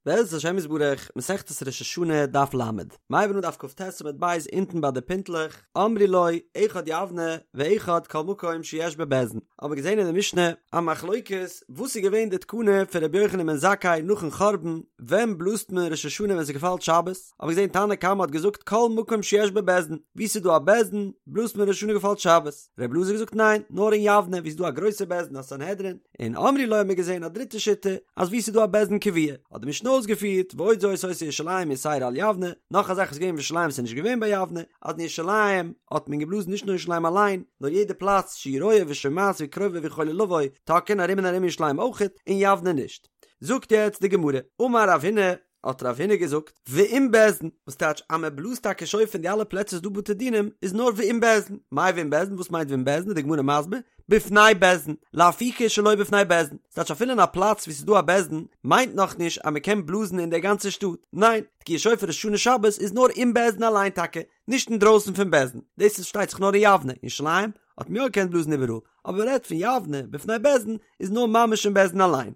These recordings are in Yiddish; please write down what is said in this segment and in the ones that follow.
בעזרת השם יתברך, מסכת ראש השנה, דף ל, מ'הייבן אן דף כ"ט עמוד ב' אונטן ביי די פינטלעך, אמרו לו, אחד יבנה ואחד כל מקום שיש בו בית דין. האבן מיר געזען אין די משנה א מחלוקת וואס איז געווען די תקנה פון רבי יוחנן בן זכאי נאכן חורבן, ווען בלאזט מען ראש השנה ווען ס'געפאלט שבת, האבן מיר געזען תנא קמא האט געזאגט כל מקום שיש בו בית דין, וואו ס'איז דא א בית דין בלאזט מען ראש השנה געפאלט שבת, רבי אלעזר האט געזאגט ניין, נאר אין יבנה וואו ס'איז דא א גרויסע בית דין א סנהדרין, און אמרו לו האבן מיר געזען א דריטע שיטה אז וואו ס'איז דא א בית דין קבוע האט די משנה אויסגעפירט ועוד זאת היתה ירושלים יתירה על יבנה, נאך א זאך איז געווען אין ירושלים וואס איז נישט געווען ביי יבנה, אז אין ירושלים האט מען געבלאזן נישט נאר ירושלים אליין, נאר יעדע פלאץ שהיא רואה ושומעת וקרובה ויכולה לבוא, תוקעין ארום און ארום ירושלים אויכעט, אין יבנה נישט. זאגט יעצט די גמרא, אמר רב הונא, האט רב הונא געזאגט, ועם בית דין, וואס טייטש אז מען בלאזט טאקע שופר אין די אלע פלעצער ס'דא בתי דינים, איז נאר ועם בית דין, מאי ועם בית דין, וואס מיינט ועם בית דין, איז די גמרא מסביר, בפני בית דין, לאפוקי שלא בפני בית דין, ס'טייטש אפילו אין א פלאץ וואו ס'איז דא א בית דין, מיינט נאכנישט אז מען קען בלאזן אין דער גאנצער שטאט, ניין, תקיעת שופר ראש השנה שבת איז נאר אין בית דין אליין טאקע, נישט אינדרויסן פון בית דין, דאס איז פארשטייט זיך נאר אין יבנה, אין ירושלים האט מען יא געקענט בלאזן איבעראל, אבער מען רעדט פון יבנה בפני בית דין איז נאר ממש אין בית דין אליין.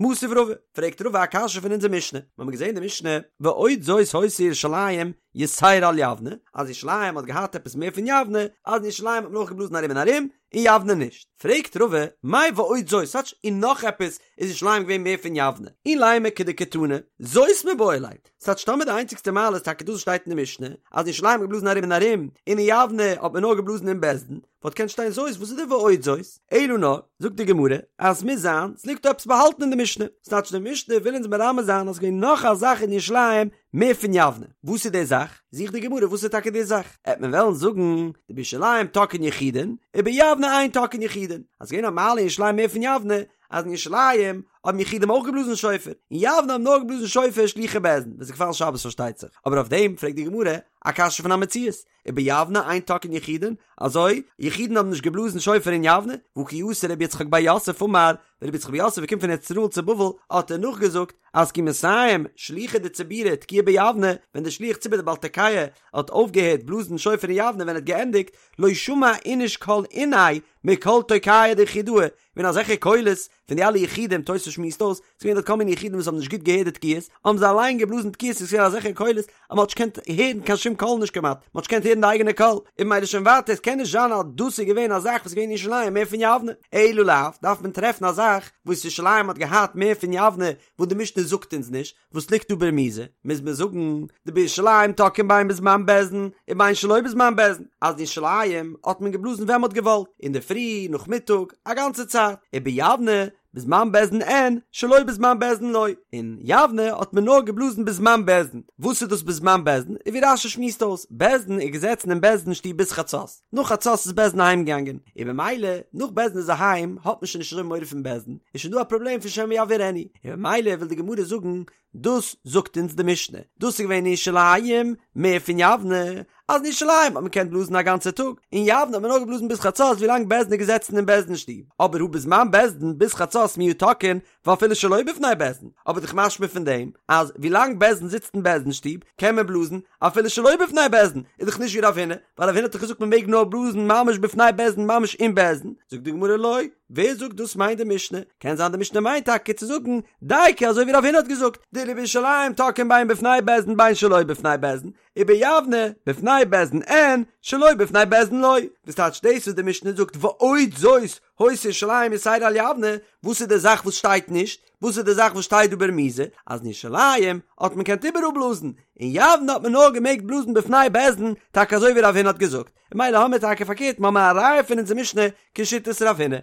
מתיב רבא, פרעגט רבא א קשיא פון אונזער משנה, מיר האבן געזען די משנה, ועוד זאת היתה ירושלים יתירה על יבנה, אז ירושלים האט געהאט עפעס מער פון יבנה, אז אין ירושלים האט מען אויך געבלאזן ארום און ארום, אין יבנה נישט. פרעגט רבא, מאי ועוד זאת, ס'טייטש און נאך עפעס איז ירושלים געווען מער פון יבנה, אילימא כדקתני, זאת מיבעי ליה, ס'טייטש טאמער די איינציגסטע מעלה איז טאקע דאס וואס שטייט אין די משנה, אז אין ירושלים האט מען געבלאזן ארום און ארום, און אין יבנה האט מען נאר געבלאזן אין בית דין, וואלט געקענט שטיין זאת, וואס איז די ועוד זאת? אלא נאר, זאגט די גמרא, אז ס'מוז זיין, ס'ליגט דא עפעס באהאלטן אין די משנה, ס'טייטש די משנה וויל אונז מרמז זיין אז ס'געווען נאך א זאך אין ירושלים מער פון יבנה, וואס איז די זאך? זוכט די גמרא וואס איז טאקע די זאך, עט מען וועלן זאגן, דבירושלים תוקעין יחידין, וביבנה אין תוקעין יחידין, אז ס'געווען א מעלה אין ירושלים מער פון יבנה, אז אין ירושלים האבן יחידים אויך געבלאזן שופר, אין יבנה האבן נאר געבלאזן שופר שלוחי בית דין, ווען ס'איז געפאלן שבת פארשטייט זיך, אבער אויף דעם פרעגט די גמרא א קשיא פון א מציאות, וביבנה אין תוקעין יחידין, אזוי, יחידים האבן נישט געבלאזן שופר אין יבנה, והא כי אתא רבי יצחק בר יוסף אמר, ווען רבי יצחק בר יוסף איז געקומען פון ארץ ישראל צו בבל, האט ער נאכגעזאגט, אז כי מסיים שליחא דציבורא תקיעה ביבנה, ווען דער שליח ציבור דער בעל תוקע האט אויפגעהערט בלאזן שופר אין יבנה ווען ער האט געענדיגט, לא שמע איניש קול איניה מקול תוקעי דיחידאי, געווען אזעלכע קולות פון די אלע יחידים, תוס' שמועסט אויס, ס'איז געווען דארט כל מיני יחידים וואס האבן נישט גוט געהערט די תקיעות, האבן זיי אליין געבלאזן תקיעות, ס'איז געווען אזעלכע קולות אז מ'האט נישט געקענט הערן קיין שום קול נישט כמעט, מ'האט נישט געקענט הערן די אייגענע קול, און ממילא שוין ווייטער, עס קען נישט זיין אז דאס איז געווען א זאך וואס איז געווען אין ירושלים מער פון יבנה, אלא לאו, דארף מען טרעפן א זאך וואס ירושלים האט געהאט מער פון יבנה וואס די משנה זאגט אונז נישט, וואס ליגט דא ברמיזה, מוז מען זאגן, דבירושלים תוקעין בין בזמן בית דין ובין שלא בזמן בית דין, אז אין ירושלים האט מען געבלאזן ווען מ'האט געוואלט, אינדערפרי, נאכמיטאג, א גאנצע צייט, וביבנה, בזמן בית דין אין, שלא בזמן בית דין לא, אין יבנה האט מען נאר געבלאזן בזמן בית דין, וואס איז דאס בזמן בית דין, איז ווי רש"י שמועסט אויס, בית דין איז געזעצן אין בית דין שטוב ביז חצות, נאך חצות איז בית דין אהיים געגאנגען, און במילא נאך בית דין איז אהיים האט מען שוין נישט אזוי מורא פון בית דין, איז שוין דא א פראבלעם פון שמא יבעירנו, און במילא וויל די גמרא זאגן, דאס זאגט אונז די משנה, דאס איז געווען אין ירושלים מער פון יבנה, אז אין ירושלים האט מען געקענט בלאזן א גאנצע טאג, אין יבנה האט מען נאר געבלאזן ביז חצות ווילאנג בית דין איז געזעצן אין בית דין שטוב, אבער הא בזמן בית דין ביז חצות מיהא תוקעין ואפילו שלא בפני בית דין, אבער דאך משמע פון דעם אז ווילאנג בית דין זיצט אין בית דין שטוב קען מען בלאזן אפילו שלא בפני בית דין, איז דאך נישט ווי רב הונא, ווייל רב הונא האט דאך געזאגט מען מעג נאר בלאזן ממש בפני בית דין ממש אין בית דין, זאגט די גמרא לא, ווער זאגט דאס מיינט די משנה? קען זיין די משנה מיינט טאקע צו זאגן דייקא אזוי ווי רב הונא האט געזאגט, דבירושלים תוקעין בין בפני בית דין בין שלא בפני בית דין, וביבנה בפני בית דין אין שלא בפני בית דין לא, וואס טייטש דאס וואס די משנה זאגט ועוד זאת היתה ירושלים יתירה על יבנה, וואס איז די זאך וואס שטייט נישט? וואס איז די זאך וואס שטייט דא ברמיזה? אז אין ירושלים האט מען געקענט איבעראל בלאזן, אין יבנה האט מען נאר געמעגט בלאזן בפני בית דין, טאקע אזוי ווי רב הונא האט געזאגט, ממילא האמיר טאקע פארקערט מ'האמיר א ראיה פון אונזער משנה כשיטת רב הונא.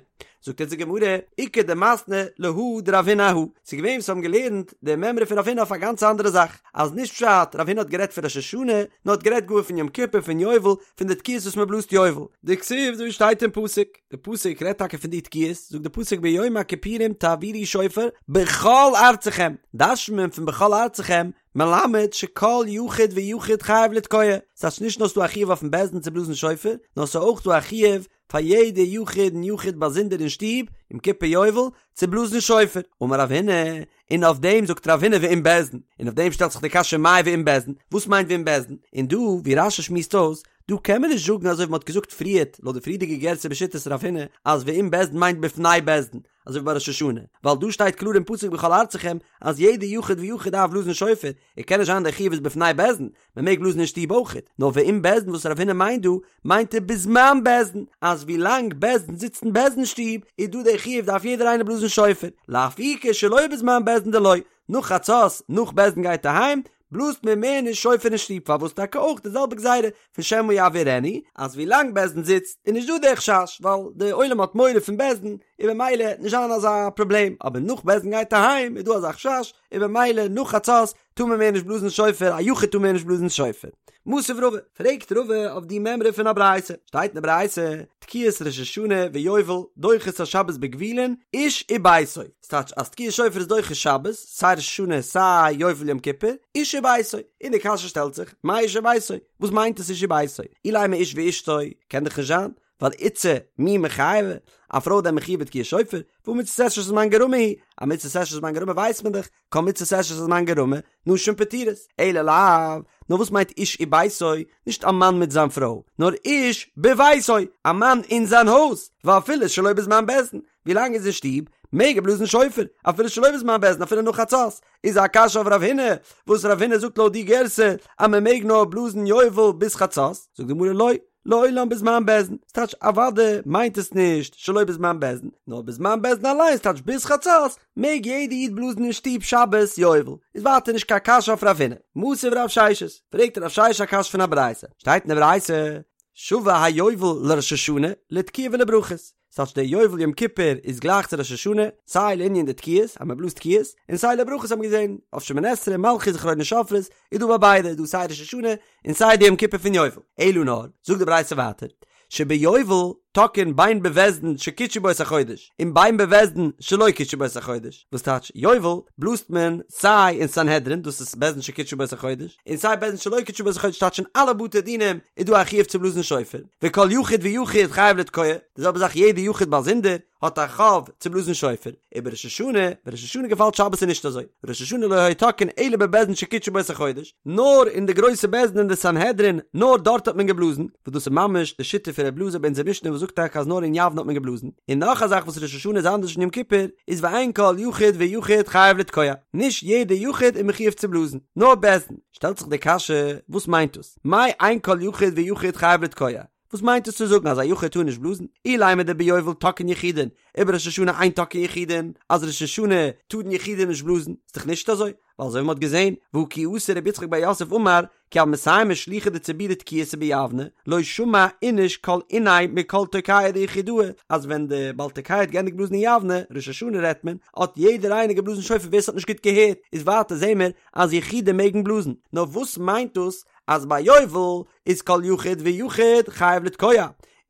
זאגט אונז די גמרא, איכא דמתני להא דרב הונא אהא, ס'איז געווען וואס האבן געלערנט די מימרא פון רב הונא אויף א גאנץ אנדערע זאך, אז נישט פשט רב הונא האט גערעדט פון ראש השנה, נאר האט גערעדט גאר פון יום כיפור פון יובל, פון די תקיעות וואס מ'בלאזט יובל. דכתיב אזוי ווי שטייט אין פסוק, די פסוק רעדט טאקע פון די תקיעות, זאגט די פסוק ביום הכיפורים תעבירו שופר בכל ארצכם, דרש'נט מען פון בכל ארצכם, מלמד שכל יחיד ויחיד חייב לתקוע, ס'טייטש נישט נאר ס'דא א חיוב אויפן בית דין צו בלאזן שופר, נאר ס'איז אויך דא א חיוב פאר יעדע יחיד און יחיד באזונדער אין שטוב, יום כיפור יובל, צו בלאזן שופר. אמר רב הונא, און אויף דעם זאגט רב הונא ועם בית דין, און אויף דעם שטעלט זיך די קשיא מאי ועם בית דין, וואס מיינט ועם בית דין? און דא, ווי רש"י שמועסט אויס, דא קען מען נישט זאגן אזוי ווי מ'האט געזאגט פריערט לויט די פריערדיגע גירסא בשיטת רב הונא אז ועם בית דין מיינט בפני בית דין, אזוי ווי ביי ראש השנה, ווייל דא שטייט קלאר אין פסוק בכל ארצכם אז יעדע יחיד ויחיד דארף בלאזן שופר, און קען נישט זיין דער חיוב איז בפני בית דין, מען מעג בלאזן אין שטוב אויכעט, נאר ועם בית דין וואס רב הונא מיינט דא, מיינט ער בזמן בית דין, אז ווי לאנג בית דין זיצט אין בית דין שטוב איז דא דער חיוב דארף יעדער איינער בלאזן שופר, לאפוקי שלא בזמן בית דין דלא, נאך חצות, נאך בית דין גייט אהיים, בלאזט מען מער נישט שופר אין שטוב, פארוואס טאקע אויך די זעלבע גזירה פון שמא יעבירנו, אז ווי לאנג בית דין זיצט איז נישט דא דער חשש, ווייל די עולם האט מורא פון בית דין, און במילא וועט נישט זיין אזא פראבלעם, אבער נאך בית דין גייט אהיים איז דא אזא חשש, און במילא נאך חצות טאר מען מער נישט בלאזן שופר, א יחיד טאר מער נישט בלאזן שופר. מתיב רבא, פרעגט רבא אויף די מימרא פון א ברייתא, שטייט אין די ברייתא, תקיעת ראש השנה ויובל דוחות השבת בגבולין, איש וביתו, ס'טייטש אז תקיעת שופר איז דוחה שבת, סיי ראש השנה סיי יובל יום כיפור, איש וביתו, און די קשיא שטעלט זיך, מאי איש וביתו? וואס מיינט עס איש וביתו? אילימא איש ואשתו, קען דאך נישט זיין, ווייל איתתא מי מיחייבא, א פרוי דען מחויב בתקיעת שופר, והא מצות עשה שהזמן גרמא היא, א מצות עשה שהזמן גרמא ווייסט מען דאך, כל מצות עשה שהזמן גרמא, נשים פטורות, אלא לאו, נאר וואס מיינט איש וביתו, נישט א מאן מיט זיין פרוי, נאר איש בביתו, א מאן אין זיין הויז, ואפילו שלא בזמן בית דין, ווי לאנג איז אין שטוב, מעג ער בלאזן שופר, אפילו שלא בזמן בית דין, אפילו נאך חצות, איז א קשיא אויף רב הונא, וואס רב הונא זאגט לויט די גירסא, אז מען מעג נאר בלאזן יובל ביז חצות, זאגט די גמרא לא, לעולם בזמן בית דין, ס'טייטש אוודאי מיינט עס נישט שלא בזמן בית דין, נאר בזמן בית דין אליין ס'טייטש ביז חצות מעג יעדע איד בלאזן אין שטוב שבת יובל, איז ווייטער נישט קיין קשיא אויף רב הונא. מתיב רב ששת, פרעגט רב ששת א קשיא פון א ברייתא, שטייט אין די ברייתא, שווה היובל לראש השנה לתקיעה ולברכות, ס'טייטש דער יובל יום כיפור איז גלייך צו ראש השנה, סיי לענין די תקיעות, אז מען בלאזט תקיעות, און סיי לברכות האט מען געזען, אויף שמונה עשרה, מלכיות זכרונות שופרות, איז דא ביי ביידע, איז דא סיי ראש השנה, און סיי די יום כיפור פון יובל. אלא נאר, זאגט די ברייתא ווייטער, שביובל תוקעין בין בבית דין שקידשו בו את החודש, און בין בבית דין שלא קידשו בו את החודש, וואס טייטש יובל בלאזט מען סיי אין סנהדרין, דאס איז בית דין שקידשו בו את החודש, און סיי בית דין שלא קידשו בו את החודש טייטש אין אלע בתי דינים איז דא א חיוב צו בלאזן שופר, וכל יחיד ויחיד חייב לתקוע, די זעלבע זאך יעדע יחיד באזונדער האט א חוב צו בלאזן שופר, ובראש השנה, ווען ראש השנה געפאלט שבת איז נישט אזוי, ראש השנה לא היו תוקעין אלא בבית דין שקידשו בו את החודש, נאר אין די גרויסע בית דין אין די סנהדרין, נאר דארט האט מען געבלאזן, וואס דאס איז ממש די שיטה פון ר' אלעזר ביי אונזער משנה וואס זאגט טאקע אז נאר אין יבנה האט מען געבלאזן, און נאך א זאך וואס ראש השנה איז אנדערש פון יום כיפור, איז ואין כל יחיד ויחיד חייב לתקוע, נישט יעדע יחיד איז מחויב צו בלאזן, נאר בית דין, שטעלט זיך די קשיא, וואס מיינט דאס? מאי אין כל יחיד ויחיד חייב לתקוע? וואס מיינט עס צו זאגן אז א יחיד טאר נישט בלאזן? אילימא דביובל תוקעין יחידין, ובראש השנה אין תוקעין יחידין, אז ראש השנה טארן יחידים נישט בלאזן, איז דאך נישט אזוי, ווייל אזוי ווי מ'האט געזען, והא כי אתא רב יצחק בר יוסף אמר, כי הוו מסיימי שלוחי דציבורא תקיעתא ביבנה, לא שמע איניש כל אוניה מכל תוקעא דיחידאי, אז ווען די בעל תוקע האט געענדיגט בלאזן אין יבנה, ראש השנה רעדט מען, האט יעדער איינער געבלאזן שופר ווער ס'האט נישט גוט געהערט, איז ווייטער זעהן מיר אז יחידים מעגן בלאזן, נאר וואס מיינט דאס אז ביי יובל איז כל יחיד ויחיד חייב לתקוע,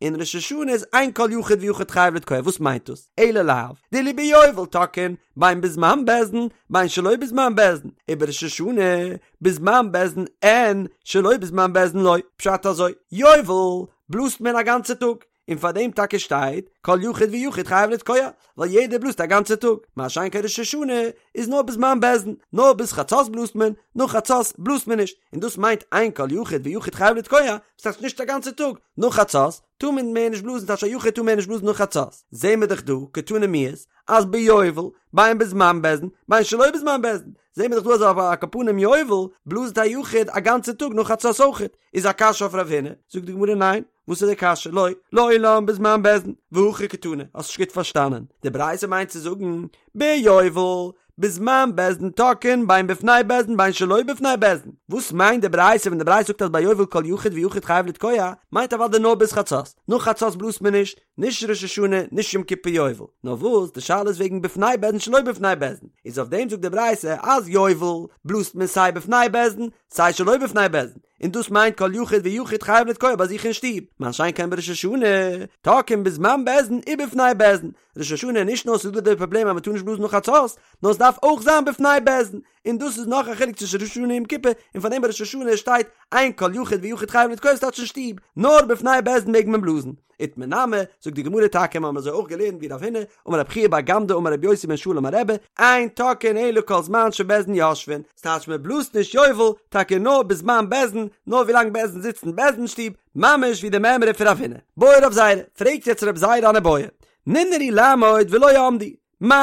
און ראש השנה איז אין כל יחיד ויחיד חייב לתקוע, וואס מיינט דאס? אלא לאו דאילו ביובל תוקעין בין בזמן בית דין בין שלא בזמן בית דין, ובראש השנה בזמן בית דין אין שלא בזמן בית דין לא, פשט אזוי, יובל בלאזט מען א גאנצע טאג, און פאר דעם טאקע שטייט כל יחיד ויחיד חייב לתקוע, ווייל יעדער בלאזט א גאנצע טאג, מה שאין כן ראש השנה איז נאר בזמן בית דין, נאר ביז חצות בלאזט מען, נאך חצות בלאזט מען נישט, און דאס מיינט אין כל יחיד ויחיד חייב לתקוע, וואס טייטש נישט א גאנצע טאג, נאך חצות טאר מען מער נישט בלאזן טייטש א יחיד טאר מער נישט בלאזן נאך חצות, זעהן מיר דאך דא קתני מיהת אז ביובל בין בזמן בית דין בין שלא בזמן בית דין, זעהן מיר דאך דא אז על כל פנים יובל בלאזט א יחיד א גאנצע טאג נאך חצות אויכעט, איז א קשיא אויף רב הונא, זאגט די גמרא ניין, וואס איז די קשיא? לא, לעולם בזמן בית דין, והכי קתני, האסט נישט גוט פארשטאנען, די ברייתא מיינט צו זאגן, ביובל, בזמן בית דין תוקעין בין בפני בית דין בין שלא בפני בית דין, וואס מיינט די ברייתא ווען די ברייתא זאגט אז ביי יובל כל יחיד ויחיד חייב לתקוע, מיינט אוודאי נאר ביז חצות, נאך חצות בלאזט מען נישט, נישט ראש השנה, נישט יום כיפור יובל, נאר וואס די שאלה איז וועגן בפני בית דין שלא בפני בית דין, איז אויף דעם זאגט די ברייתא אז יובל בלאזט מען סיי בפני בית דין סיי שלא בפני בית דין, און דאס מיינט כל יחיד ויחיד חייב לתקוע ביי זיך אין שטוב, מה שאין כן בראש השנה, תוקעין בזמן בית דין ובפני בית דין, ראש השנה נישט נאר ס'איז דא די פראבלעם אז מ'טאר נישט בלאזן נאך חצות, נאר ס'דארף אויך זיין בפני בית דין. און דאס איז נאך א חילוק צווישן ראש השנה און יום כיפור, און פאר דעם ביי ראש השנה שטייט אין כל יחיד ויחיד חייב לתקוע ס'טייטש אין שטוב, נאר בפני בית דין מעג מען בלאזן. איתמר נמי, זאגט די גמרא טאקע מיר האבן אזוי אויך געלערנט ווי רב הונא, אמר רב חייא בר גמדא אמר רבי יוסי בן שאול אמר רבי, אין תוקעין אלא כל זמן שבית דין יושבין, ס'טייטש מען בלאזט נישט יובל, טאקע נאר בזמן בית דין, נאר ווילאנג בית דין זיצט אין בית דין שטוב, ממש ווי די מימרא פון רב הונא. בעי רב זירא, פרעגט יעצט רב זירא אן איבעיא, ננערו לעמוד ולא עמדו, מהו,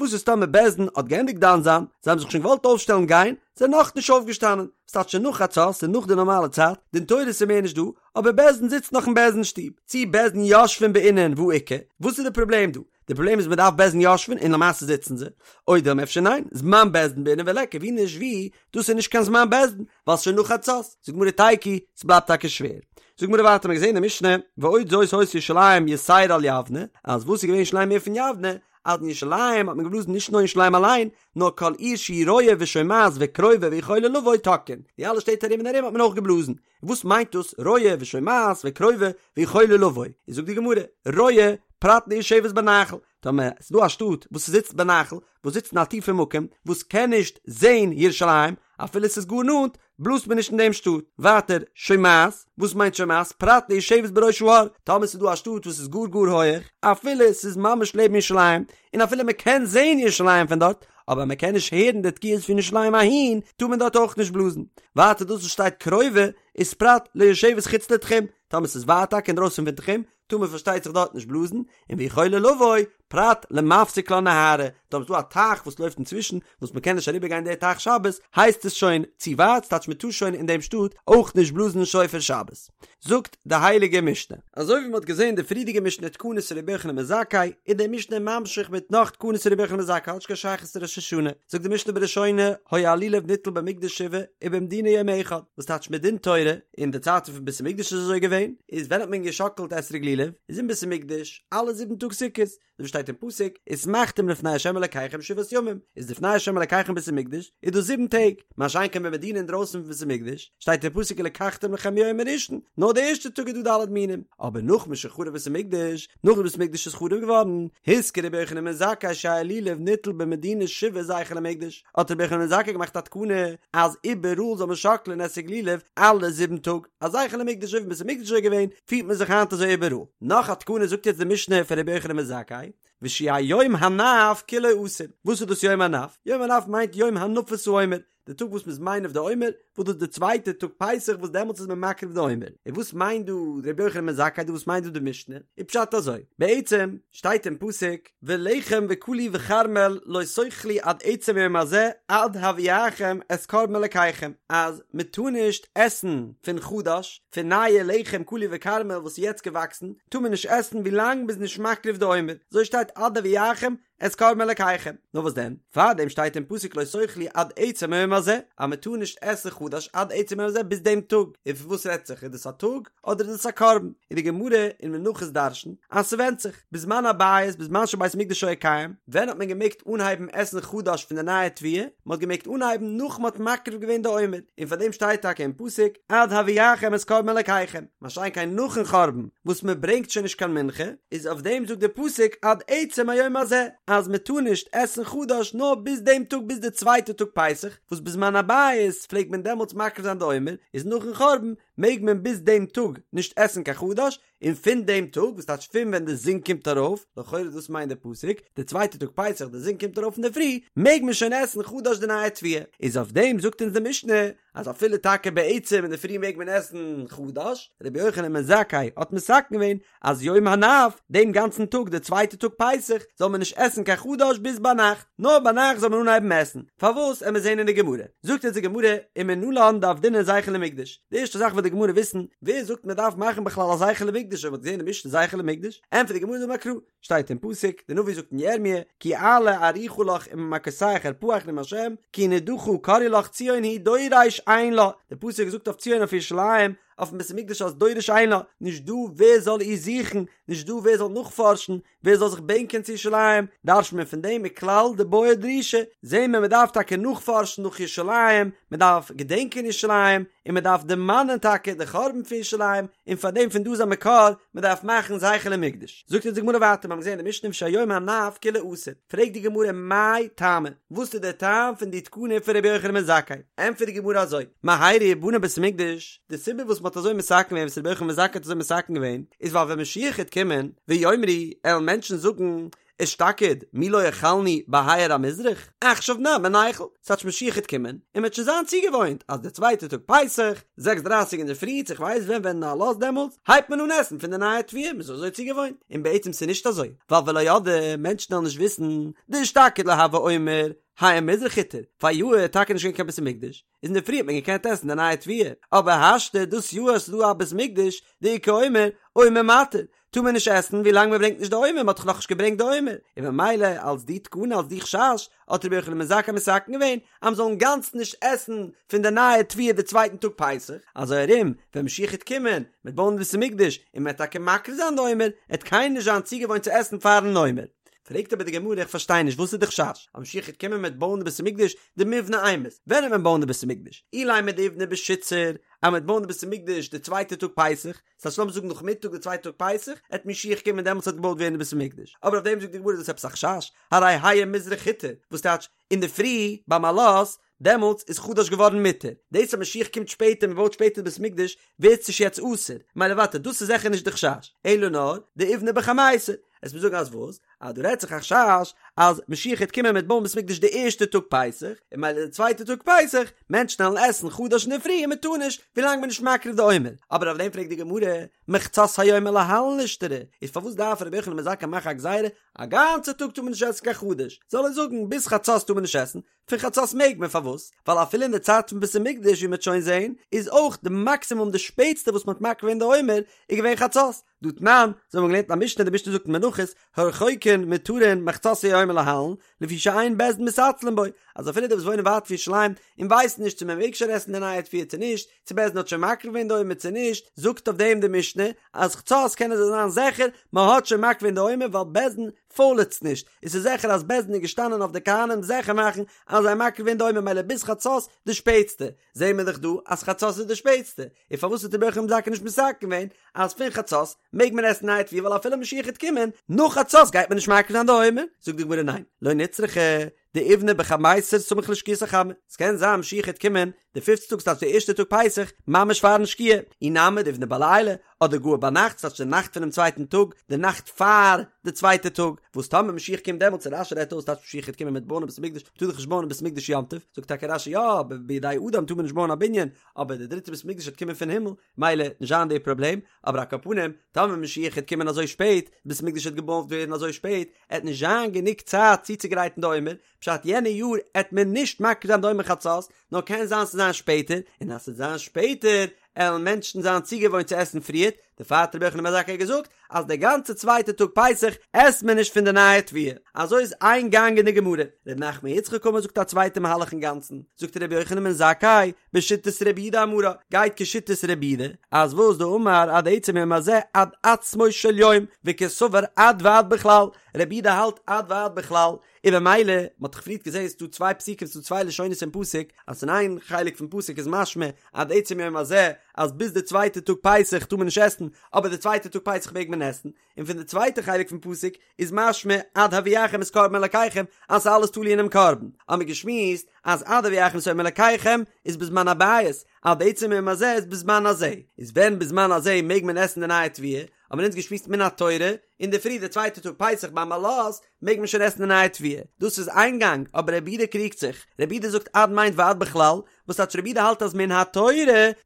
וואס איז טאמער בית דין האט געענדיגט דן זיין, זיי האבן זיך שוין געוואלט אויפשטעלן גיין, זענען נאכנישט אויפגעשטאנען, ס'טייטש שוין נאך חצות, ס'איז נאך די נארמאלע צייט, דין תורה איז מער נישט דא, אבער בית דין זיצט נאך אין בית דין שטוב, צי בית דין יושבין בעינן והא איכא, וואס איז די פראבלעם דא? די פראבלעם איז מ'דארף בית דין יושבין און למעשה זיצן זיי, או דילמא אפשר ניין, זמן בית דין בעינן וליכא, ווי נישט ווי, דאס איז נישט קיין זמן בית דין, ווייל ס'שוין נאך חצות, זאגט גמרא תיקו, ס'בלייבט טאקע שווער. זאגט גמרא ווייטער, מ'האט געזען אין די משנה, ועוד זאת היתה ירושלים יתירה על יבנה, אז וואס איז געווען ירושלים מער פון יבנה, אז אין ירושלים האט מען געבלאזן נישט נאר אין ירושלים אליין, נאר כל עיר שהיא רואה ושומעת וקרובה ויכולה לבוא תוקעין, די אלע שטעט ארום און ארום האט מען אויך געבלאזן. וואס מיינט דאס רואה ושומעת וקרובה ויכולה לבוא? איז זאגט די גמרא, רואה פרט ליושבת בנחל, טאמער ס'איז דא א שטאט וואס זיצט בנחל, וואס זיצט אין א טיפע מקום, וואס קען נישט זען ירושלים, אפילו ס'איז גאר נאנט, בלאזט מען נישט אין דעם שטאט. ווייטער, שומעת, וואס מיינט שומעת? פרט ליושבת בראש ההר, טאמער ס'איז דא א שטאט וואס איז גאר גאר הויעך, אפילו ס'איז ממש לעבן ירושלים, און אפילו מען קען זען ירושלים פון דארט, אבער מען קען נישט הערן די תקיעות פון ירושלים אהין, טאר מען דארט אויך נישט בלאזן. ווייטער דאס וואס שטייט קרובה, איז פרט ליושבת חוץ לתחום, טאמער ס'איז ווייט טאקע אינדרויסן פון תחום, טאר מען פארשטייט זיך דארט נישט בלאזן, און ויכולה לבוא, פרט למפסיק לה נהרא, טאמער ס'איז דא א טייך וואס לויפט אינצווישן, וואס מען קען נישט אריבער גיין די טייך שבת, הייסט עס שוין צו ווייט, ס'טייטש מען טאר שוין אין דעם שטאט אויך נישט בלאזן שופר שבת. זאגט די הייליגע משנה. אזוי ווי מען האט געזען די פריערדיגע משנה תקנת רבי יוחנן בן זכאי, איז די משנה ממשיך מיט נאך תקנת רבי יוחנן בן זכאי האט נישט קיין שייכות צו ראש השנה, זאגט די משנה בראשונה, היה הלולב ניטל במקדש שבעה ובמדינה יום אחד, וואס טייטש מדין תורה, אין די צייטן פון בית המקדש איז אזוי געווען, איז ווען האט מען געשאקלט אתרוג לולב, איז אין בית המקדש אלע זיבן טאג סוכות, ווי שטייט אין פסוק, ושמחתם לפני ה' אלקיכם שבעת ימים, איז לפני ה' אלקיכם בית המקדש, איז דאס זיבן טעג, מה שאין כן במדינה אינדרויסן פון בית המקדש, שטייט אין פסוק ולקחתם לכם מיום הראשון, נאר די ערשטע טאג איז דא ד' מינים, אבער נאך משחרב בית המקדש, נאך די בית המקדש איז חרוב געווארן, התקין רבי יוחנן בן זכאי שיהא לולב ניטל במדינה שבעה זכר למקדש, האט רבי יוחנן בן זכאי געמאכט א תקנה אז איבעראל זאל מען שאקלען אתרוג לולב אלע זיבן טאג, א זכר למקדש אזוי ווי בית המקדש איז געווען, פירט מען זיך היינט אזוי איבעראל. נאך א תקנה זאגט יעצט די משנה פון רבי יוחנן בן זכאי, ושיהא יום הנף כולו אסור. וואס איז דאס יום הנף? יום הנף מיינט יום הנפת העומר, די טאג וואס מ'איז מניף די עומר, וואס דאס איז די צווייטע טאג פסח וואס דעמאלטס איז מען מקריב די עומר. און וואס מיינט דא רבי יוחנן בן זכאי דא וואס מיינט דא די משנה? איז פשט אזוי, בעצם שטייט אין פסוק, ולחם וקלי וכרמל לא תאכלו עד עצם היום הזה עד הביאכם את קרבן אלקיכם, אז מען טאר נישט עסן פון חדש, פון נייע לחם קלי וכרמל וואס איז יעצט געוואקסן, טאר מען נישט עסן ווילאנג מען איז נישט מקריב די עומר, אזוי שטייט עד הביאכם את קרבן אלקיכם, נאר וואס דען, פארדעם שטייט אין פסוק לא תאכלו עד עצם היום הזה, אז מען טאר נישט עסן חדש עד עצם היום הזה ביז דעם טאג, און פון וואס רעדט זיך, איז דאס א טאג אדער איז דאס א קרבן, און די גמרא אין מנחות דרש'נט אז ס'ווענדט זיך. בזמן הבית בזמן שבית המקדש היה קיים, ווען האט מען געמעגט אנהייבן עסן חדש פון די נייע תבואה? מען האט געמעגט אנהייבן נאך מען האט מקריב געווען די עומר, און פאר דעם שטייט טאקע אין פסוק עד הביאכם את קרבן אלקיכם, מה שאין כן נאכן חורבן וואס מען ברענגט שוין נישט קיין מנחה, איז אויף דעם זאגט די פסוק עד עצם היום הזה, אז מען טאר נישט עסן חדש נאר ביז דעם טאג ביז די צווייטע טאג פסח, וואס בזמן הבית פלעגט מען דעמאלטס מקריב זיין די עומר, איז נאכן חורבן מעג מען ביז דעם טאג נישט עסן קיין חדש, און פון דעם טאג, וואס טייטש פון ווען די זון קומט ארויף, לכאורה דאס מיינט די פסוק, די צווייטע טאג פסח די זון קומט ארויף אינדערפרי, מעג מען שוין עסן חדש די נייע תבואה, איז אויף דעם זאגט אונז די משנה, אז אפילו טאקע בעצם אינדערפרי מעג מען עסן חדש, רבי יוחנן בן זכאי האט מתקן געווען אז יום הנף, דעם גאנצן טאג די צווייטע טאג פסח, זאל מען נישט עסן קיין חדש ביז ביינאכט, נאר ביינאכט זאל מען אנהייבן עסן, פארוואס עמיר זעהן אין די גמרא, זאגט אונז די גמרא, ומנלן דעבדינן זכר למקדש, די ערשטע זאך וויל די גמרא וויסן, ווער זאגט מען דארף מאכן בכלל א זכר למקדש אויב מען האט געזען אין משנה זכר למקדש? ענטפערט די גמרא דאמר קרא, שטייט אין פסוק, די נביא זאגט אין ירמיה, כי אעלה ארוכה לך וממכותיך ארפאך נאום השם, כי נדחה קראו לך ציון היא דורש אין לה, די פסוק זאגט אויף ציון אויף ירושלים, אויפן בית המקדש אז דורש אין לה, נישט דא ווער זאל איר זוכן, נישט דא ווער זאל נאכפארשן, ווער זאל זיך בענקען צו ירושלים, דרש'ט מען פון דעם מכלל דבעי דרישה, זעהן מיר מען דארף טאקע נאכפארשן נאך ירושלים, מען דארף געדענקען ירושלים, און מען דארף דערמאנען טאקע די חורבן פון ירושלים, און פאר דעם פון דא איז א מקור, מען דארף מאכן זכר למקדש. זאגט אונז די גמרא ווייטער, מיר האבן געזען אין די משנה שהיום הנף כולו אסור, פרעגט די גמרא מאי טעמא, וואס איז דער טעם פון די תקנה פון רבי יוחנן בן זכאי? ענטפערט די גמרא אזוי, מהרה יבנה בית המקדש, די סיבה וואס מען האט אזוי מתקן געווען וואס רבי יוחנן בן זכאי האט אזוי מתקן געווען, איז ווייל ווען משיח העט קומען, ויאמרו, עלן מענטשן זאגן, אשתקד, מי לא אכלנו בהאיר המזרח, עכשיו נמי ניכול, ס'טייטש משיח העט קומען, און מ'העט שוין זיין צוגעוואוינט אז די צווייטע טאג פסח, זעקס דרייסיג אינדערפרי, צו כ'ווייס ווען ווען עלות דעמאלטס, הייבט מען אן עסן פון די נייע תבואה, מ'איז אזוי צוגעוואוינט, און בעצם ס'איז נישט אזוי, ווייל ולא ידעי, מענטשן וועלן נישט וויסן, דאשתקד לא הוה עומר, האיר מזרח הותר, פאריאר איז טאקע נישט געווען קיין בית המקדש, איז אינדערפרי האט מען געקענט עסן די נייע תבואה, אבער השתא דאס יאר אז ס'איז דא א בית מקדש, דאיכא עומר, עומר מתיר, טאר מען נישט עסן ווי לאנג מען ברענגט נישט די עומר, מען האט דאך נאכנישט געברענגט די עומר, און ממילא אלס די תקנה אלס די חשש האט רבי יוחנן בן זכאי מתקן געווען אז מען זאל אינגאנצן נישט עסן פון די נייע תבואה די צווייטן טאג פסח, אזוי ארום ווען משיח העט קומען מ'עט בויען די בית המקדש און מען וועט טאקע מקריב זיין די עומר, עט קיינער נישט זיין צוגעוואוינט צו עסן פארן עומר. פרעגט אבער די גמרא איך פארשטיי נישט וואס איז די חשש אז משיח העט קומען מ'עט בויען די בית המקדש דמיבני אימת, ווען העט מען בויען די בית המקדש? אילימא דאיבני בשיתסר אז מ'עט בויען די בית המקדש די צווייטע טאג פסח, ס'הייסט לאמיר זאגן נאכמיטאג די צווייטע טאג פסח, עט משיח קומען דעמאלטס וועט געבויט ווערן די בית המקדש, אבער אויף דעם זאגט די גמרא איז דאס עפעס א חשש, הרי האיר מזרח הותר, וואס טייטש אינדערפרי ביים עלות, דעמאלטס איז חדש געווארן מותר, דאס אז משיח קומט שפעטער מען בויט שפעטער די בית המקדש ווערט עס נישט יעצט אסור, מילא ווייטער דאס איז זיכער נישט די חשש, אלא נאר דאיבני בחמיסר, עסט מיר זאגן אז וואס? אז דא רעדט זיך א חשש אז משיח העט קומען מ'עט בויען בית מקדש די ערשטע טאג פסח, און מילא די צווייטע טאג פסח, מענטשן וועלן עסן חדש אינדערפרי און מען טאר נישט ווילאנג מען איז נישט מקריב די עומר, אבער אויף דעם פרעגט די גמרא, מחצות היום ולהלן לישתרי, איז פארוואס דארף רבי יוחנן בן זכאי מאכן א גזירה א גאנצע טאג טאר מען נישט עסן קיין חדש, זאל ער זאגן ביז חצות טאר מען נישט עסן, פון חצות מעג מען, פארוואס? ווייל אפילו אין די צייט פון בית המקדש ווי מ'וועט שוין זעהן, איז אויך די מאקסימום די שפעטסטע וואס מ'האט מקריב געווען די עומר איז געווען חצות, דהא תנן, אזוי האבן מיר געלערנט אין א משנה, די משנה זאגט אין מנחות, הרחוקין מותרין מחצות היום ולהלן, לפי שאין בית דין מתעצלין בו, אז אפילו די וואס וואוינען ווייט פון ירושלים און ווייסן נישט צו מען מעג שוין עסן די נייע תבואה צו נישט, צו בית דין האט שוין מקריב געווען די עומר צו נישט, זאגט אויף דעם די משנה אז חצות קענען זיי זיין זיכער מען האט שוין מקריב געווען די עומר ווייל בית דין פוילעצט נישט, און ס'איז זיכער אז בית דין איז געשטאנען אויף די כהנים זיכער מאכן אז זיי מקריב געווען די עומר מילא ביז חצות די שפעטסטע, זעהן מיר דאך דא אז חצות איז די שפעטסטע, און פארוואס האט רבי יוחנן בן זכאי נישט מתקן געווען אז פון חצות מעג מען עסן נייע תבואה ווייל אפילו משיח העט קומען נאך חצות גייט מען נישט מקריב זיין די עומר? זאגט די גמרא ניין, לא נצרכא דאיבני בחמיסר סמוך לשקיעת החמה, ס'קען זיין משיח העט קומען די פיפטע טאג ס'טייטש די ערשטע טאג פסח ממש פארן שקיעה, אי נמי דאיבני בליליא, אדער גאר ביינאכט ס'טייטש די נאכט פונעם צווייטן טאג, די נאכט פאר די צווייטע טאג, וואס טאמער משיח קומט דעמאלטס און רש"י רעדט אויס טייטש משיח העט קומען מ'עט בויען א בית המקדש, מ'טאר דאך נישט בויען א בית המקדש יום טוב, זאגט טאקע רש"י יא, אבער בידי אדם טאר מען נישט בויען א בנין, אבער די דריטע בית המקדש העט קומען פון הימל, מילא נישט זיין די פראבלעם, אבער על כל פנים, טאמער משיח העט קומען אזוי שפעט, בית המקדש העט געבויט ווערן אזוי שפעט, עט נישט זיין גענוג צייט צוצוגרייטן די עומר, פשט יענע יאר עט מען נישט מקריב זיין די עומר חצות, נאר קען זיין ס'זיין שפעטער, און אז ס'עט זיין שפעטער, עלן מענטשן זיין צוגעוואוינט צו עסן פריערט, דערפאר האט רבי יוחנן בן זכאי געזאגט אז די גאנצע צווייטע טאג פסח עסט מען נישט פון די נייע תבואה. אזוי איז איין גאנג אין די גמרא. ר' נחמן יצחק אמר זאגט א צווייטע מהלך אינגאנצן, זאגט רבי יוחנן בן זכאי, בשיטת רבי יהודה אמרה, גייט כשיטת רבי יהודה, אז וואס דאמר עד עצם היום הזה עד עצמו של יום, וקסבר עד ועד בכלל, רבי יהודה האלט עד ועד בכלל, און במילא, מען האט דאך פריערט געזען ס'איז דא צוויי פסוקים ס'איז דא צוויי לשונות אין פסוק, אז אין איין חלק פון פסוק איז משמע עד עצם יום הזה אז ביז די צווייטע טאג פסח טאר מען נישט עסן, אבער די צווייטע טאג פסח מעג מען עסן, און פון די צווייטע חלק פון פסוק איז משמע עד הביאכם את קרבן אלקיכם אז ס'איז אלעס תלוי אינעם קרבן, האמיר געשמועסט אז עד הביאכם את עומר אלקיכם איז בזמן הבית, עד עצם יום הזה איז בזמן הזה, איז ווען בזמן הזה מעג מען עסן די נייע תבואה, האבן אונז געשמועסט מן התורה, אינדערפרי די צווייטע טאג פסח ביים עלות מעג מען שוין עסן די נייע תבואה, דאס איז איין גאנג, אבער רבי יהודה קריגט זיך, רבי יהודה זאגט עד מיינט ועד בכלל, וואס טייטש רבי יהודה האלט אז מן התורה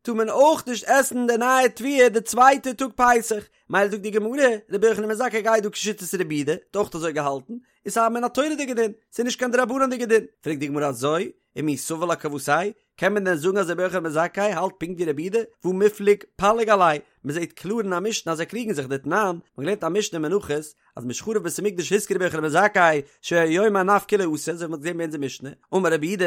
טאר מען אויך נישט עסן די נייע תבואה די צווייטע טאג פסח, מילא זאגט די גמרא, רבי יוחנן בן זכאי גייט דא כשיטת רבי יהודה, האט אויך אזוי געהאלטן, איז ס'איז א מן התורה'דיגע דין, ס'איז נישט קיין דרבנן'דיגע דין, פרעגט די גמרא אזוי, ומי סבר לה כוותיה, קען מען דען זאגן אז רבי יוחנן בן זכאי האלט פונקט ווי רבי יהודה, והא מיפלג פליג עליה, מען זעט קלאר אין א משנה אז זיי קריגן זיך דתנן, מען האט געלערנט א משנה אין מנחות, אז משחרב בית המקדש התקין רבי יוחנן בן זכאי שהיום הנף כולו אסור, אזוי ווי מען האט געזען ביי אונזער משנה, אמר רבי יהודה,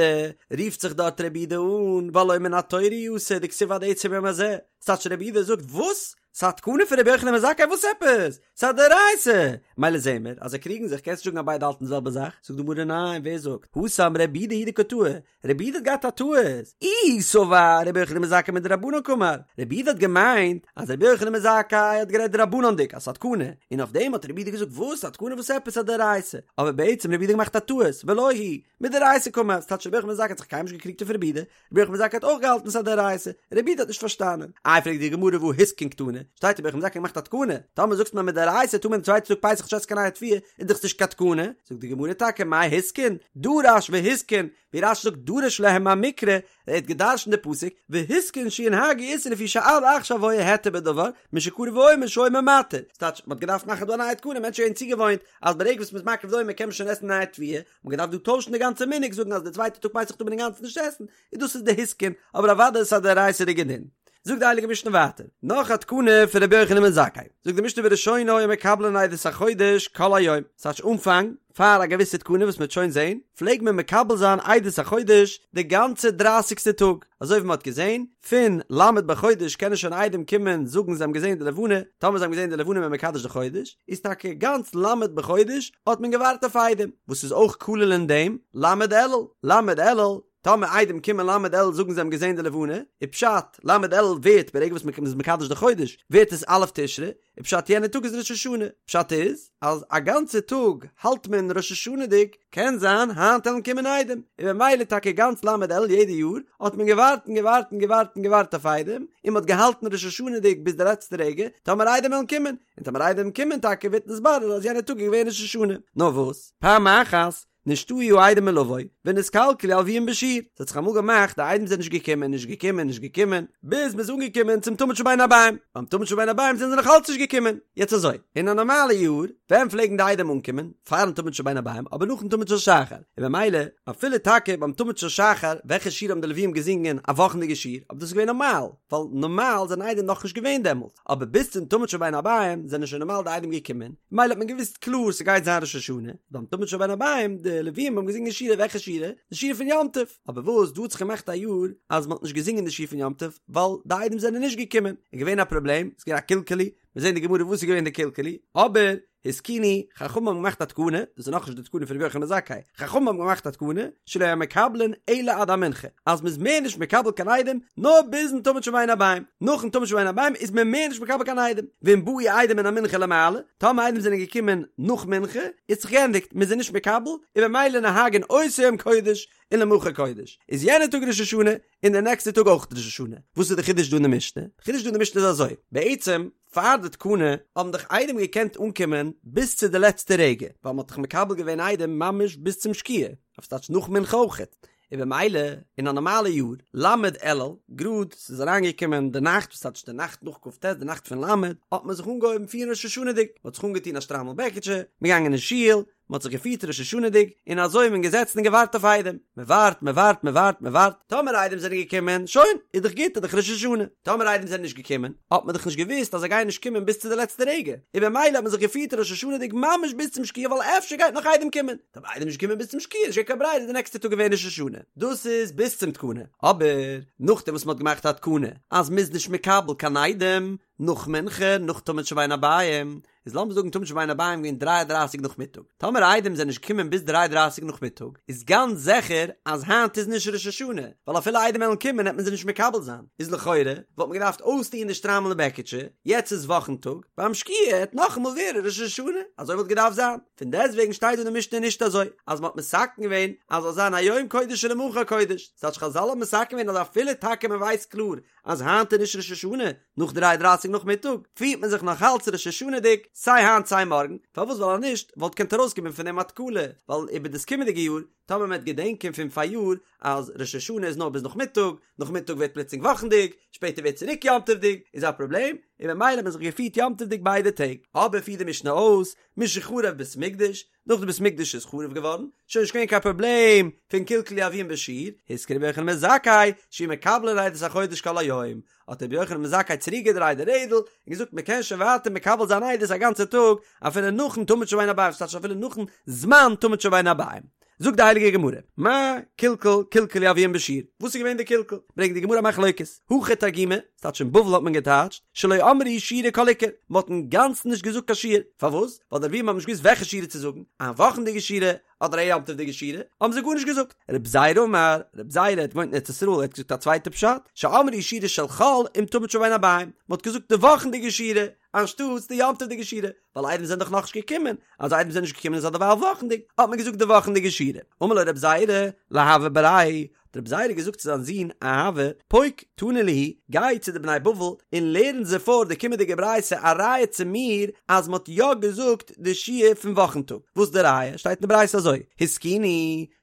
רופט זיך דארט רבי יהודה אן, והלא מן התורה הוא אסור דכתיב עד עצם היום הזה, ס'טייטש רבי יהודה זאגט וואס? ס'א תקנה פון רבי יוחנן בן זכאי וואס עפעס? ס'א דאורייתא! מילא זעהן מיר אז זיי קריגן זיך, קענסט נישט זאגן אז ביידע האלטן די זעלבע זאך, זאגט די גמרא ניין, ווער זאגט? התם רבי יהודה הוא דקא טעי, רבי יהודה האט געהאט א טעות, איהו סבר רבי יוחנן בן זכאי מדרבנן קאמר, רבי יהודה האט געמיינט אז רבי יוחנן בן זכאי האט גערעדט דרבנן'דיג אז ס'א תקנה, און אויף דעם האט רבי יהודה געזאגט וואס? א תקנה וואס עפעס? ס'א דאורייתא, אבער בעצם רבי יהודה האט געמאכט א טעות, ולא היא, מדאורייתא קאמר, ס'טייטש רבי יוחנן בן זכאי האט זיך קיינמאל נישט געקריגט אויף רבי יהודה, רבי יוחנן בן זכאי האט אויך געהאלטן ס'איז א דאורייתא, רבי יהודה האט נישט פארשטאנען. איי פרעגט די גמרא והא התקין קתני, שטייט רבי יוחנן בן זכאי געמאכט א תקנה, טאמער זאגסט מיר מדאורייתא טאר מען די צווייטע טאג פסח נישט עסן קיין נייע תבואה, איז דאך נישט קיין תקנה, זאגט די גמרא טאקע מאי התקין, דרש והתקין, ווי רש"י זאגט דרש להם מהמקרא, ער האט געדרשנט די פסוק, והתקין שינהגו איסור לפי שעד עכשיו היה היתר בדבר, משקרב העומר שהעומר מתיר, ס'טייטש מ'האט געדארפט מאכן דא א נייע תקנה, מענטשן זענען צוגעוואוינט אז ברגע וואס מ'איז מקריב די עומר קען מען שוין עסן נייע תבואה, מ'האט געדארפט דא טוישן די גאנצע מנהג זאגן אז די צווייטע טאג פסח טאר מען אינגאנצן נישט עסן, און דאס איז די התקין, אבער אוודאי איז עס א דאורייתא'דיגע דין. זאגט די הייליגע משנה ווייטער, נאך א תקנה פון רבי יוחנן בן זכאי, זאגט די משנה בראשונה היו מקבלין עדות החודש כל היום, ס'טייטש אנפאנג, פאר א געוויסע תקנה וואס מ'וועט שוין זען, פלעג מען מקבל זיין עדות החודש די גאנצע דרייסיגסטע טאג, אזוי ווי מ'האט געזען, פון ל' בחודש קענען שוין עדים קומען זאגן זיי האבן געזען די לבנה, טאמער זיי האבן געזען די לבנה איז מען מקדש די חודש, איז טאקע גאנץ ל' בחודש האט מען געווארט אויף עדים, וואס איז אויך כולל אין דעם ל' אלול, ל' אלול, טאמער עדים קומען ל' אלול זאגן זיי האבן געזען די לבנה, איז פשט, ל' אלול ווערט ברגע וואס מען איז מקדש די חודש, ווערט עס א' תשרי, איז פשט יענע טאג איז ראש השנה, פשט איז אז א גאנצע טאג האלט מען ראש השנה'דיג, קען זיין היינט וועלן קומען עדים, און במילא טאקע גאנץ ל' אלול יעדע יאר האט מען געווארט און געווארט און געווארט און געווארט אויף עדים, און מען האט געהאלטן ראש השנה'דיג ביז די לעצטע רגע, טאמער עדים וועלן קומען, און טאמער עדים קומען טאקע ווערט נתברר אז יענע טאג איז געווען ראש השנה, נאר וואס? פעם אחת נשתהו העדים מלבוא, ונתקלקלו הלוים בשיר, ס'האט זיך אמאל געמאכט די עדים זענען נישט געקומען, נישט געקומען, נישט געקומען, ביז מ'איז אנגעקומען צום תמיד של בין הערביים, ביים תמיד של בין הערביים זענען זיי נאך אלץ נישט געקומען, יעצט אזוי, אין א נארמאלע יאר, ווען פלעגן די עדים אנקומען? פארן תמיד של בין הערביים, אבער נאכן תמיד של שחר, און במילא, אפילו טאקע ביים תמיד של שחר, וועלכע שיר האבן די לווים געזינגען? א וואכנדיגע שיר, אבער דאס איז געווען נארמאל, ווייל נארמאל זענען עדים נאכנישט געווען דעמאלט. אבער ביז צום תמיד של בין הערביים זענען שוין נארמאל די עדים געקומען, ממילא האט מען געוואוסט קלאר ס'גייט זיין ראש השנה, ביים תמיד של בין הערביים, די לווים האבן געזינגען שירה, וועלכע שירה? די שירה פון יום טוב, אבער וואס דא האט זיך געמאכט א יאר אז מ'האט נישט געזינגען די שיר פון יום טוב ווייל די עדים זענען נישט געקומען, איז געווען א פראבלעם, ס'איז געווען א קלקול, מיר זעהן אין די גמרא וואס איז געווען די קלקול, אבער התקינו, חכמים האבן געמאכט א תקנה, דאס איז נאכנישט די תקנה פון רבי יוחנן בן זכאי, חכמים האבן געמאכט א תקנה, שלא יהו מקבלין אלא עד המנחה, אז מ'איז מער נישט מקבל קיין עדים, נאר ביזן תמיד של בין הערביים, נאכן תמיד של בין הערביים איז מען מער נישט מקבל קיין עדים, ואם באו עדים מן המנחה ולמעלה, טאמער עדים זענען געקומען נאך מנחה, איז זיך געענדיגט, מ'איז זיי נישט מקבל, און במילא נוהגין אותו יום קודש, ולמחר קודש, איז יענער טאג ראש השנה, און די נעקסטע טאג אויך ראש השנה. וואס איז די חידוש דא אין די משנה? די חידוש דא אין די משנה איז אזוי, בעצם פאר די תקנה האבן דאך עדים געקענט אנקומען ביז צו די לעצטע רגע, ווייל מ'האט דאך מקבל געווען עדים ממש ביז צום שקיעה, אויף ס'טייטש נאך מנחה אויכעט, און במילא אין א נארמאלע יאר, ל' אלול, גראד ס'איז אריינגעקומען די נאכט, וואס טייטש די נאכט נאך כ"ט, די נאכט פון ל', האט מען זיך אנגעהויבן פירן ראש השנה'דיג, מ'האט זיך אנגעטון א שטריימל בעקיטשע, מ'איז געגאנגען אין שול, מען האט זיך געפירט ראש השנה'דיג, און אזוי איז מען געזעצן און געווארט אויף עדים, מען ווארט, מען ווארט, מען ווארט, מען ווארט, טאמער עדים זענען געקומען, שוין, איז דאך גוט, איז דאך ראש השנה, טאמער עדים זענען נישט געקומען, האט מען דאך נישט געוואוסט אז זיי גייען נישט קומען ביז צו די לעצטע רגע, און במילא האט מען זיך געפירט ראש השנה'דיג ממש ביז צום שקיעה ווייל אפשר גייט נאך עדים קומען, טאמער עדים נישט געקומען ביז צום שקיעה, נישט געווען קיין ברירה איז די נעקסטע טאג געווען ראש השנה, דאס איז ביז צום תקנה, אבער נאכדעם וואס מען האט געמאכט א תקנה אז מען איז נישט מקבל קיין עדים נאך מנחה, נאך תמיד של בין הערביים, איז לאמיר זאגן תמיד של בין הערביים געווען דריי א דרייסיג נאכמיטאג, טאמער עדים זענען נישט געקומען ביז דריי דרייסיג נאכמיטאג, איז גאנץ זיכער אז היינט איז נישט ראש השנה, ווייל אפילו עדים וועלן קומען העט מען זיי נישט מקבל זיין, איז לכאורה וואלט מען געדארפט אויסטוען די שטריימל און בעקיטשע, יעצט איז וואכן טאג, ביים שקיעה העט נאכאמאל ווערן ראש השנה, אזוי וואלט געדארפט זיין, פון דעסטוועגן שטייט דא אין די משנה נישט אזוי, אז מען האט מתקן געווען אז זאל זיין היום קודש ולמחר קודש, ס'טייטש חזל האבן מתקן געווען אז אפילו טאקע מען ווייסט קלאר אז היינט איז נישט ראש השנה, נאך דריי דרייסיג נאכמיטאג, פירט מען זיך נאך אלץ ראש השנה'דיג, סיי היינט סיי מארגן, פארוואס ווייל אז נישט וואלט געקענט ארויסקומען פון דעם א תקלה, ווייל איבער דאס קומענדיגע יאר, טאמער מען וועט געדענקען פון פאריאר אז ראש השנה איז נאר ביז נאכמיטאג, נאכמיטאג ווערט פלוצלינג וואכנדיג, שפעטער ווערט צוריק יום טוב'דיג, איז א פראבלעם, און במילא האט מען זיך געפירט יום טוב'דיג ביידע טעג. אבער פירט די משנה אויס, משחרב בית המקדש, נאך די בית מקדש איז חרוב געווארן, שוין נישט געווען קיין פראבלעם פון קלקלו הלוים בשיר, התקין רבי יוחנן בן זכאי, שיהו מקבלין עדות החודש כל היום, האט רבי יוחנן בן זכאי צוריק געדרייט די רעדל, און געזאגט מען קען שוין ווייטער מקבל זיין עדות א גאנצע טאג, אפילו נאכן תמיד של בין הערביים, ס'טייטש אפילו נאכן זמן תמיד של בין הערביים. זאגט די הייליגע גמרא, מה קלקול קלקלו הלוים בשיר, וואס איז געווען די קלקול? ברענגט די גמרא א מחלוקת, הכא תרגימו, ס'טייטש אין בבל האט מען געטייטשט, שלא אמרו שירה כל עיקר, מ'האט אינגאנצן נישט געזאגט קיין שיר, פארוואס? ווייל די לווים האבן נישט געוואוסט וועלכע שירה צו זאגן, א וואכנדיגע שירה, אדער א יום טוב'דיגע שירה, האבן זיי גארנישט געזאגט. רב זירא אמר, רב זירא האט געוואוינט אין ארץ ישראל, ער האט געזאגט א צווייטע פשט, שאמרו שירה של חול עם תמיד של בין הערבים, מ'האט געזאגט די וואכנדיגע שירה, אנשטאטס די יום טוב'דיגע שירה, ווייל עדים זענען דאך נאכנישט געקומען, אז עדים זענען נישט געקומען איז אדערווייל וואכנדיג, האט מען געזאגט די וואכנדיגע שירה. אמר לו רב זירא, לאהבה בריה, האט רב זירא געזאגט צו זיין זון אהבה, פוק תני להו, גיי צו די בני בבל און לערן זיי פאר די קומענדיגע ברייתא א ראיה צו מיר אז מען האט יא געזאגט די שיר פון וואכן טאג, וואס די ראיה? שטייט אין די ברייתא אזוי, התקינו,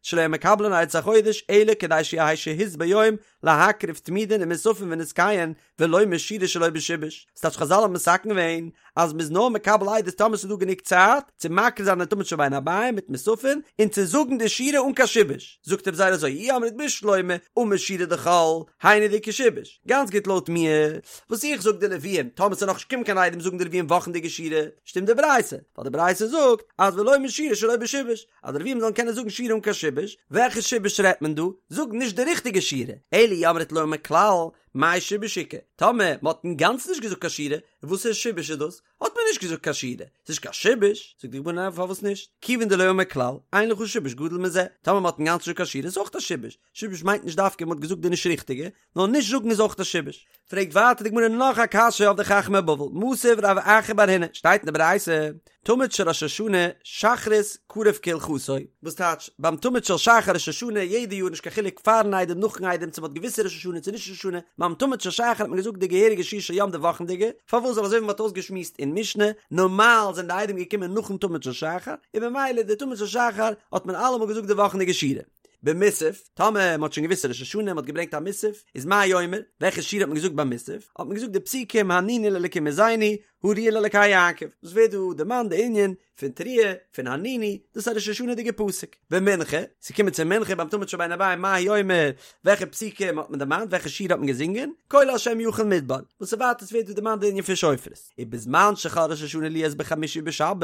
שלא יהו מקבלין עדות החודש אלא כדי שיהא שהות ביום להקריב תמידין ומוספין ונסכיהן ולומר שירה שלא בשיבוש, ס'טייטש חזל האבן מתקן געווען אז מ'איז נאר מקבל עדות טאמער ס'איז דא גענוג צייט צו מקריב זיין די תמיד של בין הערבים מיט מוספין און צו זאגן די שירה אן קיין שיבוש, זאגט רב זירא אזוי אי אמרת בשלמא אמור שירה דחול, היינו דאיכא שיבוש, גאנץ גוט לויט מיר וואס איך זאג די לוויים טאמער ס'איז נאכנישט געקומען קיין עדים זאגן די לוויים וואכנדיגע שירה, שטימט די ברייתא, ווייל די ברייתא זאגט אז ולומר שירה שלא בשיבוש, אז די לוויים זאלן קענען זאגן שירה אן קיין שיבוש, וועלכע שיבוש רעדט מען דא? זאג נישט די ריכטיגע שירה, אלא אי אמרת לא אמור כלל, מאי שיבוש איכא? טאמער מען האט אינגאנצן נישט געזאגט קיין שירה, וואסערע שיבוש איז דאס? האט מען נישט געזאגט קיין שירה, ס'איז נישט קיין שיבוש, זאגט די גמרא ניין פארוואס נישט? כיוון דלא אמור כלל, אין לך שיבוש גדול מזה, טאמער מען האט אינגאנצן נישט געזאגט קיין שירה איז אויך א שיבוש, שיבוש מיינט נישט דווקא מען האט געזאגט די נישט ריכטיגע, נאר נישט זאגן איז אויך א שיבוש. פרעגט ווייטער די גמרא נאך א קשיא אויף די חכמי בבל, מתיב רב אחא בר הונא, שטייט אין די ברייתא, תמיד של ראש השנה, שחרית קרוב כהלכתו, וואס טייטש, ביים תמיד של שחר ראש השנה, יעדע יאר נישט קיין חילוק פארן איידעם נאכן איידעם צו מ'האט געוואוסט ראש השנה צו נישט ראש השנה, ביים תמיד של שחר האט מען געזאגט די געהעריגע שיר של יום די וואכנדיגע, פארוואס ווייל אזוי ווי מ'האט אויסגעשמועסט אין משנה, נארמאל זענען די עדים געקומען נאכן תמיד של שחר, און במילא די תמיד של שחר האט מען אלעמאל געזאגט די וואכנדיגע שירה. במוסף, טאמער מ'האט שוין געוואוסט ראש השנה, מ'האט געברענגט א מוסף, איז מה אומר, וועלכע שירה האט מען געזאגט ביים מוסף? האט מען געזאגט די פסוקים הרנינו לאלקים עוזנו, הריעו לאלקי יעקב, וואס ווערט דא דערמאנט די ענין פון תרועה, פון הרנינו, דאס איז א ראש השנה'דיגע פסוק. במנחה, ס'איז געקומען צו מנחה ביים תמיד של בין הערבים מה הוא אומר, וועלכע פסוקים האט מען דערמאנט, וועלכע שירה האט מען געזינגען, קול השם יחיל מדבר, וואס איז ווייטער ס'ווערט דא דערמאנט די ענין פון שופרות. ובזמן שחל ראש השנה להיות בחמישי ובשבת,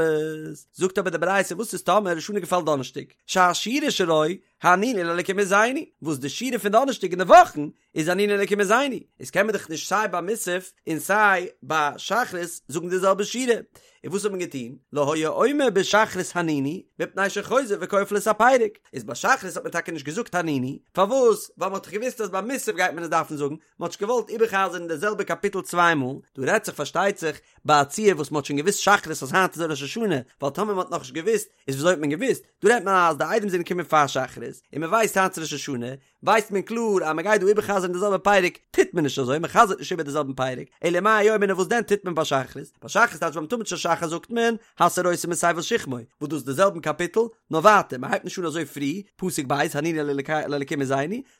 זאגט אבער די ברייתא וואס איז טאמער ראש השנה געפאלט דאנערשטאג, שהשירה שלו הרנינו לאלקים עוזנו, וואס די שירה פון דאנערשטאג אין די וואכן איז הרנינו לאלקים עוזנו, איז קען מען דאך נישט סיי ביי מוסף און סיי ביי שחרית זאגן די זעלבע שירה, און וואס האט מען געטון? לא היה אומר בשחרית הרנינו, מפני שחוזר וכופל את הפרק, איז ביי שחרית האט מען טאקע נישט געזאגט הרנינו, פארוואס? ווייל מען האט דאך געוואוסט אז ביי מוסף גייט מען עס דארפן זאגן, מען האט נישט געוואלט איבער'חזר'ן די זעלבע קאפיטל צוויי מאל, דא רעדט זיך פארשטייט זיך ביי א ציור וואס מען האט שוין געוואוסט שחרית אז היינט איז ראש השנה, ווייל טאמער מען האט נאכנישט געוואוסט איז וויאזוי האט מען געוואוסט? דא רעדט מען אז די עדים זענען געקומען פאר שחרית, און מען ווייסט היינט איז ראש השנה, ווייסט מען קלאר אז מען גייט דא איבער'חזר'ן די זעלבע פרק, טוט מען נישט אזוי, מען חזר'ט נישט איבער די זעלבן פרק, אלא מה היה אומר וואס דען טוט מען ביי שחרית? ביי שחרית טייטש ביים תמיד של שחר זאגט מען, הסירותי מתבל שכמו, וואס דאס איז די זעלבן קאפיטל, נאר ווייטער, מען הייבט נישט אן אזוי פרי, פסוק ב', הרנינו לאלקים עוזנו,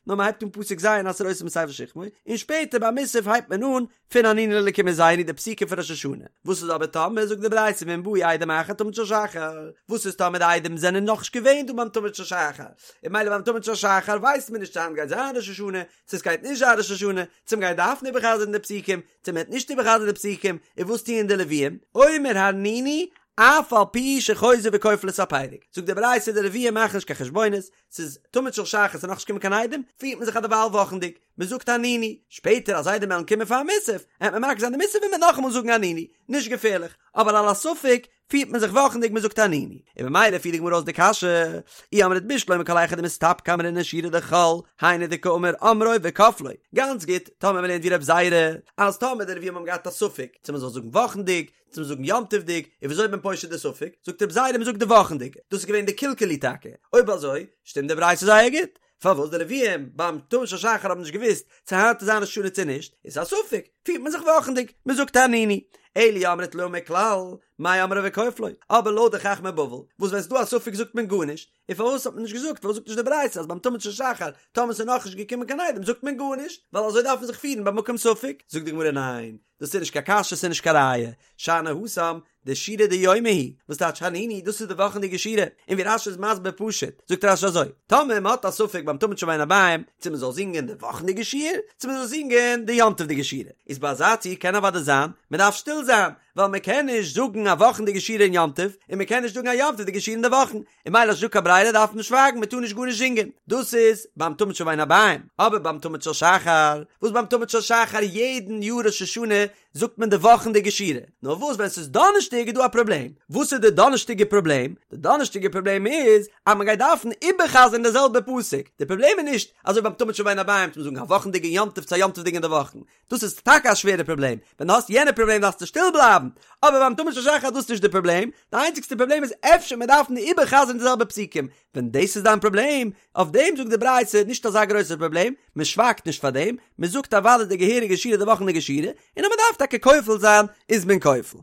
נאר מען הייבט אן פסוק ז' הסירותי מתבל שכמו, און שפעטער ביי מוסף הייבט מען אן פון הרנינו לאלקים עוזנו די פסוקים פון ראש השנה, וואס איז אבער טאמער זאגט די ברייתא ואם באו עדים אחר תמיד של שחר, וואס איז טאמער די עדים זענען נאכנישט געווען דא ביים תמיד של שחר, און ממילא ביים תמיד של שחר ווייסט מען נישט צו היינט גייט זיין ראש השנה, צו עס גייט נישט זיין ראש השנה, צו מען גייט דארפן איבערחזר'ן די פסוקים, צו מען וועט נישט איבערחזר'ן די פסוקים, און וואס טוען די לוויים? אומר הרנינו אף על פי שחוזר וכופל את הפרק, זאגט די ברייתא די לוויים מאכן נישט קיין חשבונות, ס'איז תמיד של שחר ס'איז נאכנישט געקומען קיין עדים, פירט מען זיך אדערווייל וואכנדיג, מען זאגט הרנינו, שפעטער אז עדים וועלן קומען פאר מוסף, העט מען מקריב זיין די מוסף און מען וועט נאכאמאל זאגן הרנינו, נישט געפערליך, אבער על הספק פירט מען זיך וואכנדיג מען זאגט הרנינו, און ממילא פירט די גמרא אויס די קשיא, אי אמרת בשלמא כל היכא דמסתפקא אמרינן שירה דחול, היינו דקאמר אמרו וכפלו, גאנץ גוט, טאמער מען לערנט ווי רב זירא, אז טאמער די לווים האבן געהאט א ספק צו מען זאל זאגן וואכנדיג, צו מ'זאגן יום טוב'דיג, און וויאזוי איז מען פושט די ספק? זאגט רב זירא מ'זאגט די וואכנדיגע, דאס איז געווען די קלקלו טאקע, אויב אזוי שטימט די ברייתא זייער גוט, פארוואס די לווים ביים תמיד של שחר האבן נישט געוואוסט צו היינט איז זיין ראש השנה צו נישט, איז א ספק, פירט מען זיך וואכנדיג, מ'זאגט הרנינו, אלא אי אמרת לא אמור כלל, מאי אמרו וכופלו, אבער לויט די חכמי בבל, וואס ווען ס'איז דא א ספק זאגט מען גארנישט, און פארוואס האט מען נישט געזאגט, פארוואס זאגט נישט די ברייתא אז ביים תמיד של שחר טאמער ס'איז נאכנישט געקומען קיין עדים זאגט מען גארנישט, ווייל אזוי דארף מען זיך פירן במקום ספק, זאגט די גמרא ניין, דאס איז נישט קיין קשיא ס'איז נישט קיין ראיה, שאני התם דשירה דיומא היא, וואס טייטש הרנינו דאס איז די וואכענדיגע שירה, און ווי רש"י איז מסביר פשוט, זאגט רש"י אזוי, טאמער מען האט א ספק ביים תמיד של בין הערבים צו מען זאל זינגען די וואכענדיגע שיר, צו מען זאל זינגען די יום טוב'דיגע שירה, איז ביי אזא ציור קען אוודאי זיין מען דארף שטיל זיין, ווייל מען קען נישט זאגן א וואכנדיגע שירה אין יום טוב, און מען קען נישט זאגן א יום טוב'דיגע שירה אין די וואכן, און ממילא אז נישטא קיין ברירה דארף מען שווייגן מען טאר נישט גארנישט זינגען, דאס איז ביים תמיד של בין הערביים, אבער ביים תמיד של שחר, וואס ביים תמיד של שחר יעדן יאר ראש השנה זאגט מען די וואכנדיגע שירה, נאר וואס ווען ס'איז דאנערשטאג איז דא א פראבלעם, וואס איז די דאנערשטאגע פראבלעם? די דאנערשטאגע פראבלעם איז אז מען גייט דארפן איבערחזר'ן די זעלבע פסוק, די פראבלעם איז נישט אזוי ביים תמיד של בין הערביים צו זאגן א וואכנדיגע יום טוב צו א יום טוב'דיגע אין די וואכן, דאס איז טאקע א שווערע פראבלעם, ווען דו האסט יענע פראבלעם דארפסטו שטיל בלייבן, אבער ביים תמיד של שחר איז דאס נישט די פראבלעם, די איינציגסטע פראבלעם איז אפשר מען דארפן איבערחזר'ן די זעלבע פסוקים, ווען דאס איז דיין פראבלעם, אויף דעם זאגט די ברייתא נישט אזא גרויסער פראבלעם, מען שווייגט נישט פאר דעם, מען זאגט אוודאי די געהעריגע שירה די וואכנדיגע שירה, און אז מען דארף טאקע כופל זיין איז מען כופל.